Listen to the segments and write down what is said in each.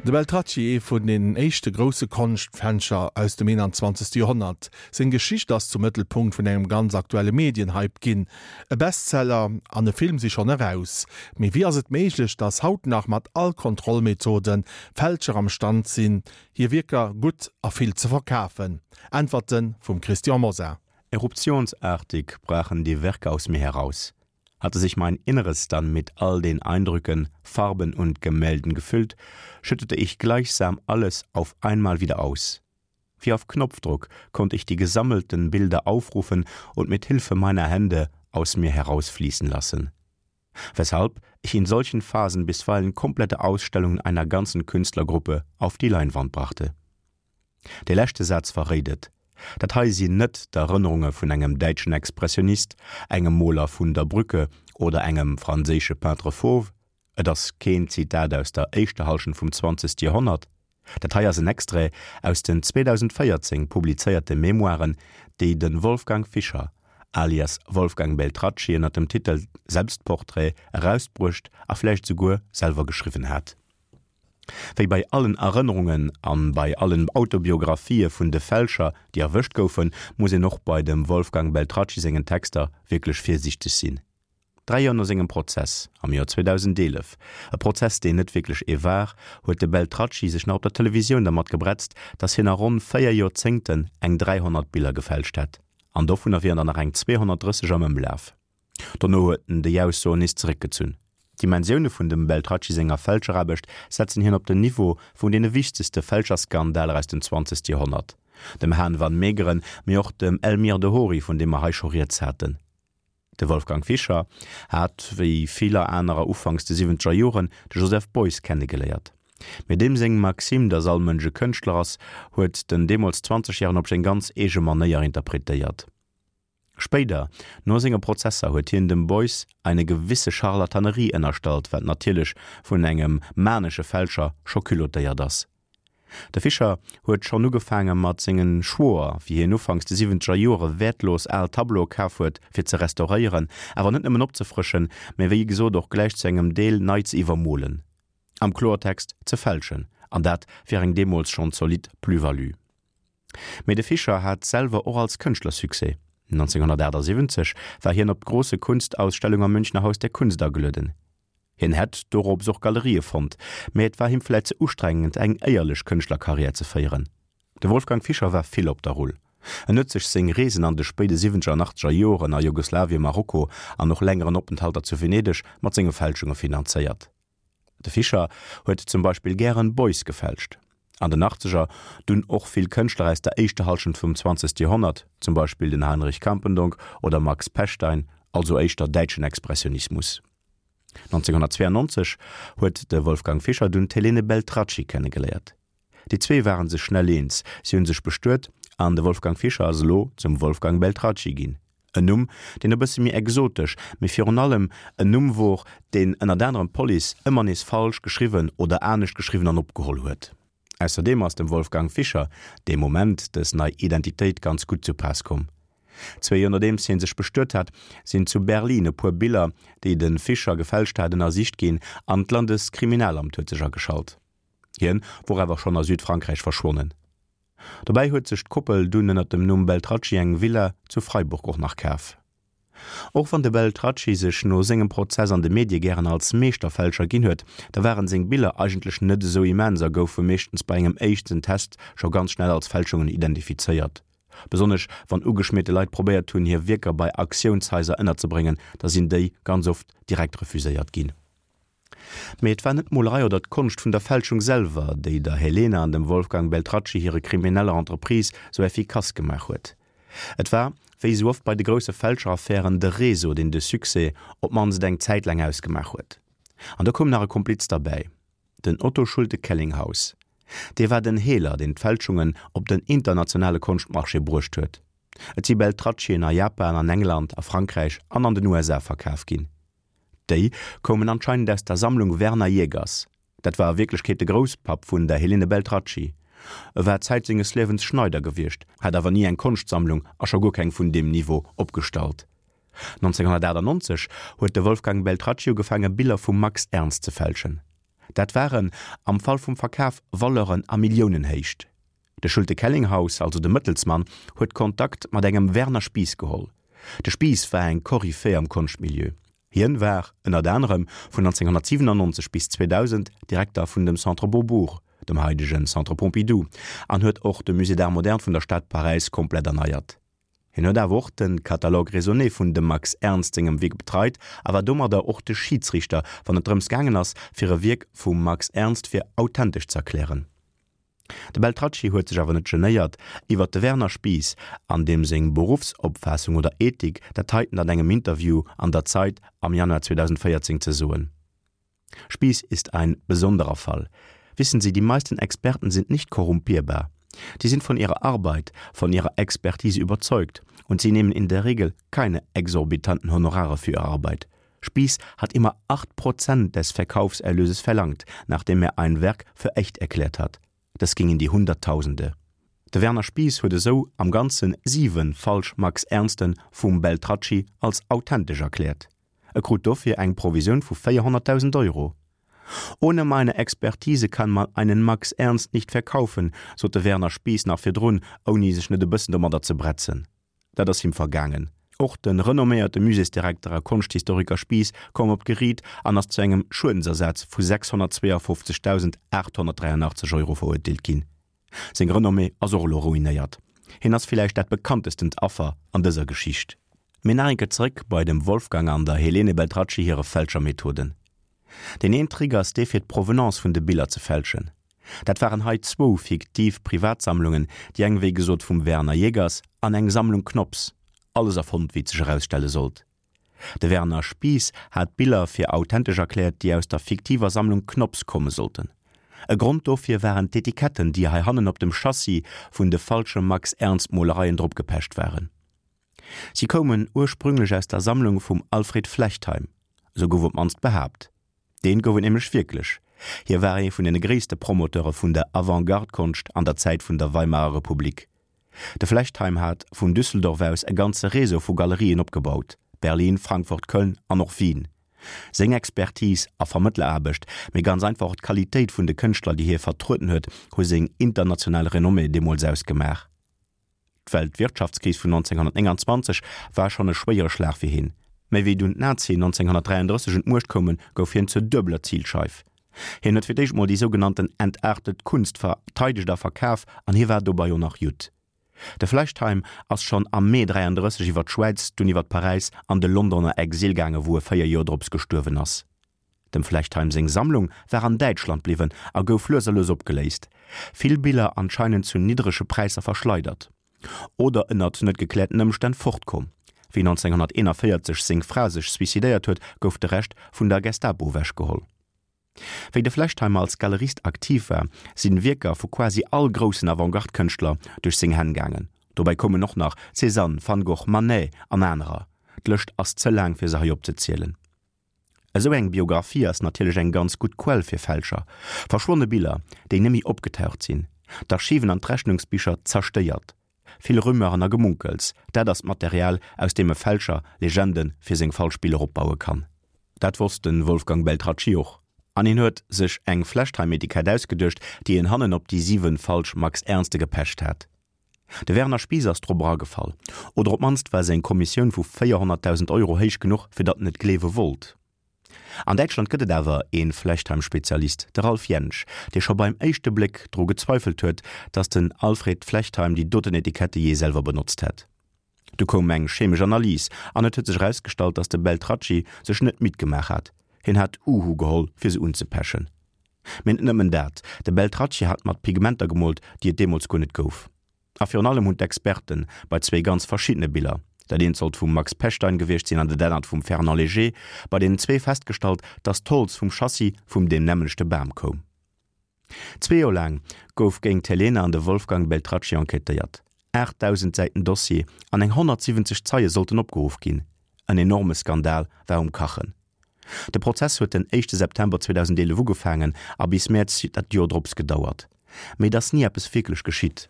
De Beltracchi, ee vun den éischte grousse Konschtfälscher aus dem 21. Joerhonnert. Seng Geschicht ass zum Mëttelpunkt vun engem ganz aktuelle Medienhype ginn. E Bestseller an e Film si schonn eraus. Mee wéi ass et méiglech, datt haut nach mat all Kontrollmethoden Fälscher am Stand sinn, hir Wierker gutt a vill ze verkafen? Äntwerte vum Christian Mosar. Eruptionsartig brachen die Werke aus mir heraus. Hatte sich mein Inneres dann mit all den Eindrücken, Farben und Gemälden gefüllt, schüttete ich gleichsam alles auf einmal wieder aus. Wie auf Knopfdruck konnte ich die gesammelten Bilder aufrufen und mit Hilfe meiner Hände aus mir herausfließen lassen. Weshalb ich in solchen Phasen bisweilen komplette Ausstellungen einer ganzen Künstlergruppe auf die Leinwand brachte. Dee leschte Saz verréit et, Dat hei sinn net d'Erënnerunge vun engem däitschen Expressionist, engem Moler vun der Brücke oder engem franséische Peintre fauve. Et ass keen Zitat aus der éischter Hallschent vum zwanzegste Joerhonnert. Dat hei ass en Extrait aus den 2014 publizéierte Memoiren, déi de Wolfgang Fischer alias Wolfgang Beltracchi ënner dem Titel Selbstporträt erausbruecht a vläicht esouguer selwer geschriwwen hat. Wéi bei allen Erënnerungen an bei allen Autobiographië vun de Fälscher, déi erwëscht goufen, muss een och bei dem Wolfgang Beltracchi sengen Texter wierklech virsiichteg sinn. Dräi Joer no sengem Prozess, am Joer 2011, e Prozess deen net wierklech ee war, huet de Beltracchi sech nach op der Televisioun dermat gebretzt, datt hien a ronn 4 Joerzéngten eng 300 Biller gefälscht hätt, an dovunner wieren der nach eng 230 am Ëmlaf. Dono huet en déi Aussoen nees zeréckgezunn. D'Dimensioune vun dem Beltracchi senger Fälscheraarbecht setzen hien op den Niveau vun deene wichtegste Fälscherskandaler aus dem zwanzegste Joerhonnert, dem Han van Meegeren, mee och dem Elmyr de Hory, vun deem mer hei scho rieds haten. De Wolfgang Fischer hat, wéi viller anerer ufanks de siwwenzeger Joren, de Joseph Beuys kennegeléiert. Mee deem seng Maxime, datt all Mënsch e Kënschtler ass, huet den deemools Zwanzegjäregen op seng ganz eege Manéier interpretéiert. Spéider, no senge Prozesser, huet hien dem Beuys eine gewisse Charlatanerie ënnerstallt, wat natierlech vun engem manesche Fälscher scho culottéiert ass. De Fischer huet schonn ugefaange mat sengen Schwoer, wéi hien ufanks de siwwenzeger Joere wäertlos al Tableaue kaf huet fir ze restauréieren, awer net nëmmen opzefrëschen, mä wéi gesot och gläich zu engem Deel nei ze iwwermolen, am Kloertext ze fälschen, an dat fir eng deemools schonn zolidd Plus-value. Mee de Fischer hat selwer och als Kënschtler Succès. 1978 war hien op d'Große Kunstausstellung am Münchner Haus der Kunst agelueden. Hien hätt dorops och Galerië fonnt, mee et war him vläit ze ustrengend eng éierlech Kënschtlerkarriär ze féieren. De Wolfgang Fischer war vill op der Rull. En huet sech seng Reesen an de spéide siwwenzeger an achtzeger Joren a Jugoslawien, Marokko an och längeren Openthalter zu Venedeg mat senge Fälschunge finanzéiert. De Fischer huet zum Beispill gären Beuys gefälscht. An den Achtzeger dunn och vill Kënschtler aus der éischter Hallschent vum zwanzegste Joerhonnert, zum Beispill den Heinrich Campendonk oder Max Pechstein, also éischter däitschen Expressionismus. 1992 huet de Wolfgang Fischer dunn d'Helene Beltracchi kennegeléiert. Déi zwee ware sech schnell eens, si hu sech bestuet an de Wolfgang Fischer ass elo zum Wolfgang Beltracchi ginn. En Numm, deen e bësse méi exotesch, mee virun allem en Numm wor, deen ënnert anerem d'Police ëmmer nees falsch geschriwwen oder anescht geschriwwen an opgeholl huet. Ausserdeem ass dem Wolfgang Fischer dee Moment dës nei Identitéit ganz gutt zu Paass komm. Zwee Joer nodeems hie sech bestuet hat, sinn zu Berlin e puer Biller, déi de Fischer gefälscht hat, ënnersicht ginn an d'Landeskriminalamt huet sech ageschalt. Hien wor awer schonn a Südfrankräich verschwonnen. Dobäi huet sech d'Koppel dunn ënner dem Numm Beltracchi eng Villa zu Freiburg och nach kaf. Och wann de Beltracchi sech no sengem Prozess an de Medie gären als Meeschterfälscher ginn huet, da waren seng Biller eigentlech net esou immens a goufe meeschtens bei engem éischten Test scho ganz schnell als Fälschungen identifizéiert. Besonnesch wann ugeschmierte Leit probéiert hunn hir Wierker bei Auktiounshaiser ënnerzebréngen, da sinn déi ganz oft direkt refuséiert ginn. Mee et war net d'Molerei oder d'Konscht vun der Fälschung selwer, déi der Helena an dem Wolfgang Beltracchi hire krimineller Entreprise sou effikass gemaach huet. Et war, wéi sou oft bei de grousse Fälscheraffären, de Réseau, deen de Succès op d'mannst eng Zäit laang ausgemaach huet. An do koum nach e Kompliz derbäi, den Otto Schulte-Kellinghaus. Dee war den Heeler, deen d'Fälschungen op den internationale Konschtmarché bruecht huet. Et si Beltraccien a Japan, an England, a Frankräich an an den USA verkaf ginn. Déi koumen anscheinend aus der Sammlung Werner Jägers. Dat war a Wierklechkeet de Grousspapp vun der Helene Beltracchi. E war Zäit senges Liewens Schneider gewiescht, hat awer ni eng Konschtsammlung a scho guer keng vun deem Niveau opgestallt. 1998 huet de Wolfgang Beltracchi ugefaange Biller vum Max Ernst ze fälschen. Dat waren am Fall vum Verkaf Valeuren a Milliounenhéicht. De Schulte Kellinghaus, also de Mëttelsmann, huet Kontakt mat engem Werner Spies geholl. De Spies war eng Koryphäe am Konschtmilieu. Hien war, ënnert anerem, vun 1997 bis 2000 Direkter vun dem Centre Beaubourg, dem haidegen Centre Pompidou, an huet och de Musée d'Art moderne vun der Stad Paräis komplett erneiert. Hien huet awer och de Catalogue raisonné vun dem Max Ernst sengem Wierk betreit a war domadder och de Schiidsriichter, wann et drëms gaangen ass, fir e Wierk vum Max Ernst fir authentesch z'erklären. De Beltracchi huet sech awer net genéiert, iwwer de Werner Spies an deem seng Beruffsopfaassung oder Ethik dat heiten an engem Interview an der Zeit am Januar 2014 ze soen, Spies ist ein besonderer Fall. Wissen Sie, die meisten Experten sind nicht korrumpierbar. Die sind von ihrer Arbeit, von ihrer Expertise überzeugt und sie nehmen in der Regel keine exorbitanten Honorare für ihre Arbeit. Spies hat immer 8 Prozent des Verkaufserlöses verlangt, nachdem er ein Werk für echt erklärt hat. Das ging in die Hunderttausende. De Werner Spies huet esou am Ganze 7 falsch Max Ernsten vum Beltracchi als authentesch erkläert. E krut dofir eng Provisioun vu 400.000 Euro. Ohne meine Expertise kann man einen Max Ernst nicht verkaufen, sot de Werner Spies nach virdrun, ouni sech net e bëssen domadder ze bretzen. Dat ass him vergaangen. Och de renomméierte Muséesdirekter a Konschthistoriker Spies koum op d'Geriit an ass zu engem Schuedensersaz vu 652.883 Euro verurteelt ginn. Seng Renommée ass och elo ruinéiert. Hien ass villäicht dat bekanntestent Affer an dëser Geschicht. Mee nach eng Kéier zeréck bei dem Wolfgang an der Helene Beltracchi hire Fälschermethoden. Deen een Trick ass dee fir d'Provenance vun de Biller ze fälschen. Dat waren hei zwou fiktiv Privatsammlungen, déi eng wéi gesot vum Werner Jegers an eng Sammlung Knops. Alles erfonnt, wéi et sech erausstelle sollt. De Werner Spies hat Biller fir authentesch erkläert, déi aus der fiktiver Sammlung Knops komme sollten. E Grond dofir waren d'Etiketten, déi heihannen op dem Chassis vun de falsche Max-Ernst-Molereien dropgepecht waren. Si koumen ursprünglech aus der Sammlung vum Alfred Flechtheim, esou gouf op d'mannst behaapt. Deen gouf et nämlech wierklech. Hie war ee vun den gréisste Promoteure vun der Avantgarde-Konscht an der Zäit vun der Weimarer Republik. De Flechtheim hat vun Düsseldorf aus e ganze Réseau vu Galerien opgebaut, Berlin, Frankfurt, Köln an och Wien. Seng Expertise a Vermëttleraarbecht, mee ganz einfach och d'Qualitéit vun de Kënschtler, déi hie vertrueden huet, hu seng international Renommée deemools ausgemaach. D'Weltwirtschaftskris vun 1929 war schonn e schwéiere Schlag fir hien, mä wéi dunn d'Nazien 1933 un d'Muecht koumen, gouf hien zur duebeler Zilscheif. Hien huet fir d'éischt mol déi sougenannten entartet Kunst verteidegt a verkaf an hie war dobei och nach Judd. De Flechtheim ass schonn am Mee 33 iwwer d'Schwäiz, dunn iwwer Paräis an de Londoner Exil gaange wou e 4 Joer drops gestuerwen ass. Dem Flechtheim seng Sammlung war an Däitschland bliwwen a gouf lues a lues opgeléist, vill Biller anscheinend zu niddrege Präisser verschleidert oder ënnert net gekläerten Ëmstänn fortkomm. Wéi 1941 seng Fra sech suicidéiert huet, gouf de Rescht vun der Gestapo ewechgeholl. Wéi de Flechtheimer als Galerist aktiv war, sinn Wierker vu quasi all groussen Avantgarde-Kënschtler duerch seng Hänn gaangen. Dobäi koumen och nach Cézanne, Van Gogh, Manet an anerer. D'Lëscht ass ze laang fir se hei opzezielen. Esou eng Biographie ass natierlech eng ganz gutt Quell fir Fälscher. Verschwonne Biller, déi nemmi opgetaucht sinn, d'Archiven an d'Rechnungsbicher zerstéiert, vill Rumeuren a Gemunkels, dat ass d'Material, aus deem e Fälscher Legende fir seng falsch Biller opbaue kann. Dat wosst de Wolfgang Beltracchi och, an hien huet sech eng Flechtheim-Etikett ausgeduecht, déi en hannen op déi 7 falsch Max Ernste gepecht hat. De Werner Spies ass drop eragefall, oder op d'mannst war seng Kommissioun vu 400.000 Euro héich genuch, fir datt en et gleewe wollt. An Däitschland gëtt et awer ee Flechtheim-Spezialist, de Ralf Jentsch, dee scho beim éischte Bléck dru gezweifelt huet, datt den Alfred Flechtheim déi doten Etikette jee selwer benotzt hätt. Du koum eng chemesch Analys an et huet sech erausgestallt, datt de Beltracchi sech net midd gemaach hat, hien hat Uhu geholl, fir se unzepechen. Mee net nëmmen dat, de Beltracchi hat mat Pigmenter gemoolt, déi et deemools guer net gouf. A virun allem hunn d'Experte bei zwéi ganz verschiddene Biller, dat eent sollt vum Max Pechstein gewiescht sinn an dat anert vum Fernand Léger, bei deenen zwee festgestallt, datt d'Holz vum Chassis vum deem nämmlechte Bam koum. Zwee Joer laang gouf géint d'Helena an de Wolfgang Beltracchi enquêtéiert. 8.000 Säiten Dossier an eng 170 Zeie sollten opgeruff ginn. En enorme Skandal war um Kachen. De Prozess huet den éischte September 2011 ugefaangen a bis Mäerz dat Joer drops gedauert. Mee et ass ni eppes wierklech geschitt.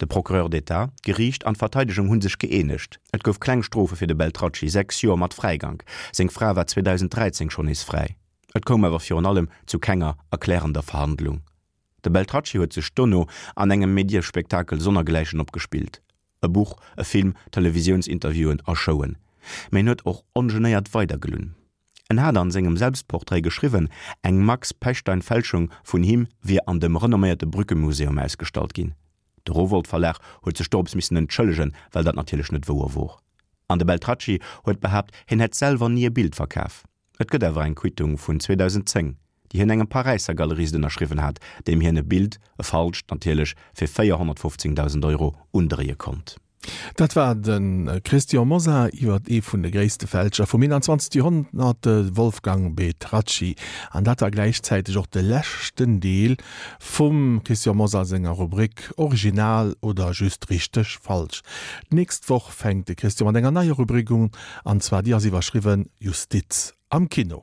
De Procureur d'État, d'Geriicht an d'Verteidegung hu sech gëeenegt. Et gouf kleng Strofe fir de Beltracchi, 6 Joer mat Fräigank. Seng Fra war 2013 schonn nees fräi. Et koum awer virun allem zu kenger erklärender Verhandlung. De Beltracchi huet sech dono an engem Mediespektakel sonnergläichen opgespillt, e Buch, e Film, Televisiounsinterviewen a Showen. Mee en huet och ongenéiert weidergelunn. En hat an sengem Selbstportrait geschriwwen, eng Max Pechstein-Fälschung vun him wier an dem renomméierte Brücke-Museum ausgestallt ginn. De Rowohlt Verlag huet sech dorops missen entschëllegen, well dat natierlech net wouer wor. An de Beltracchi huet behaapt, hien hätt selwer ni e Bild verkaf. Et gëtt awer eng Quittung vun 2010, déi hien engem Paräisser Galerist ënnerschriwwen hat, deem hien e Bild, e falscht natierlech, fir 415.000 Euro undréie konnt. Dat war de Christian Mosar iwwer ee vun de gréisste Fälscher vum 21. Joerhonnert, de Wolfgang Petracci. An dat war gläichzäiteg och de leschten Deel vum Christian Mosar senger Rubrik Original oder just richteg falsch. D'nächst Woch fänkt de Christian mat enger neier Rubrik un, an zwar déi ass iwwerschriwwen Justiz am Kino.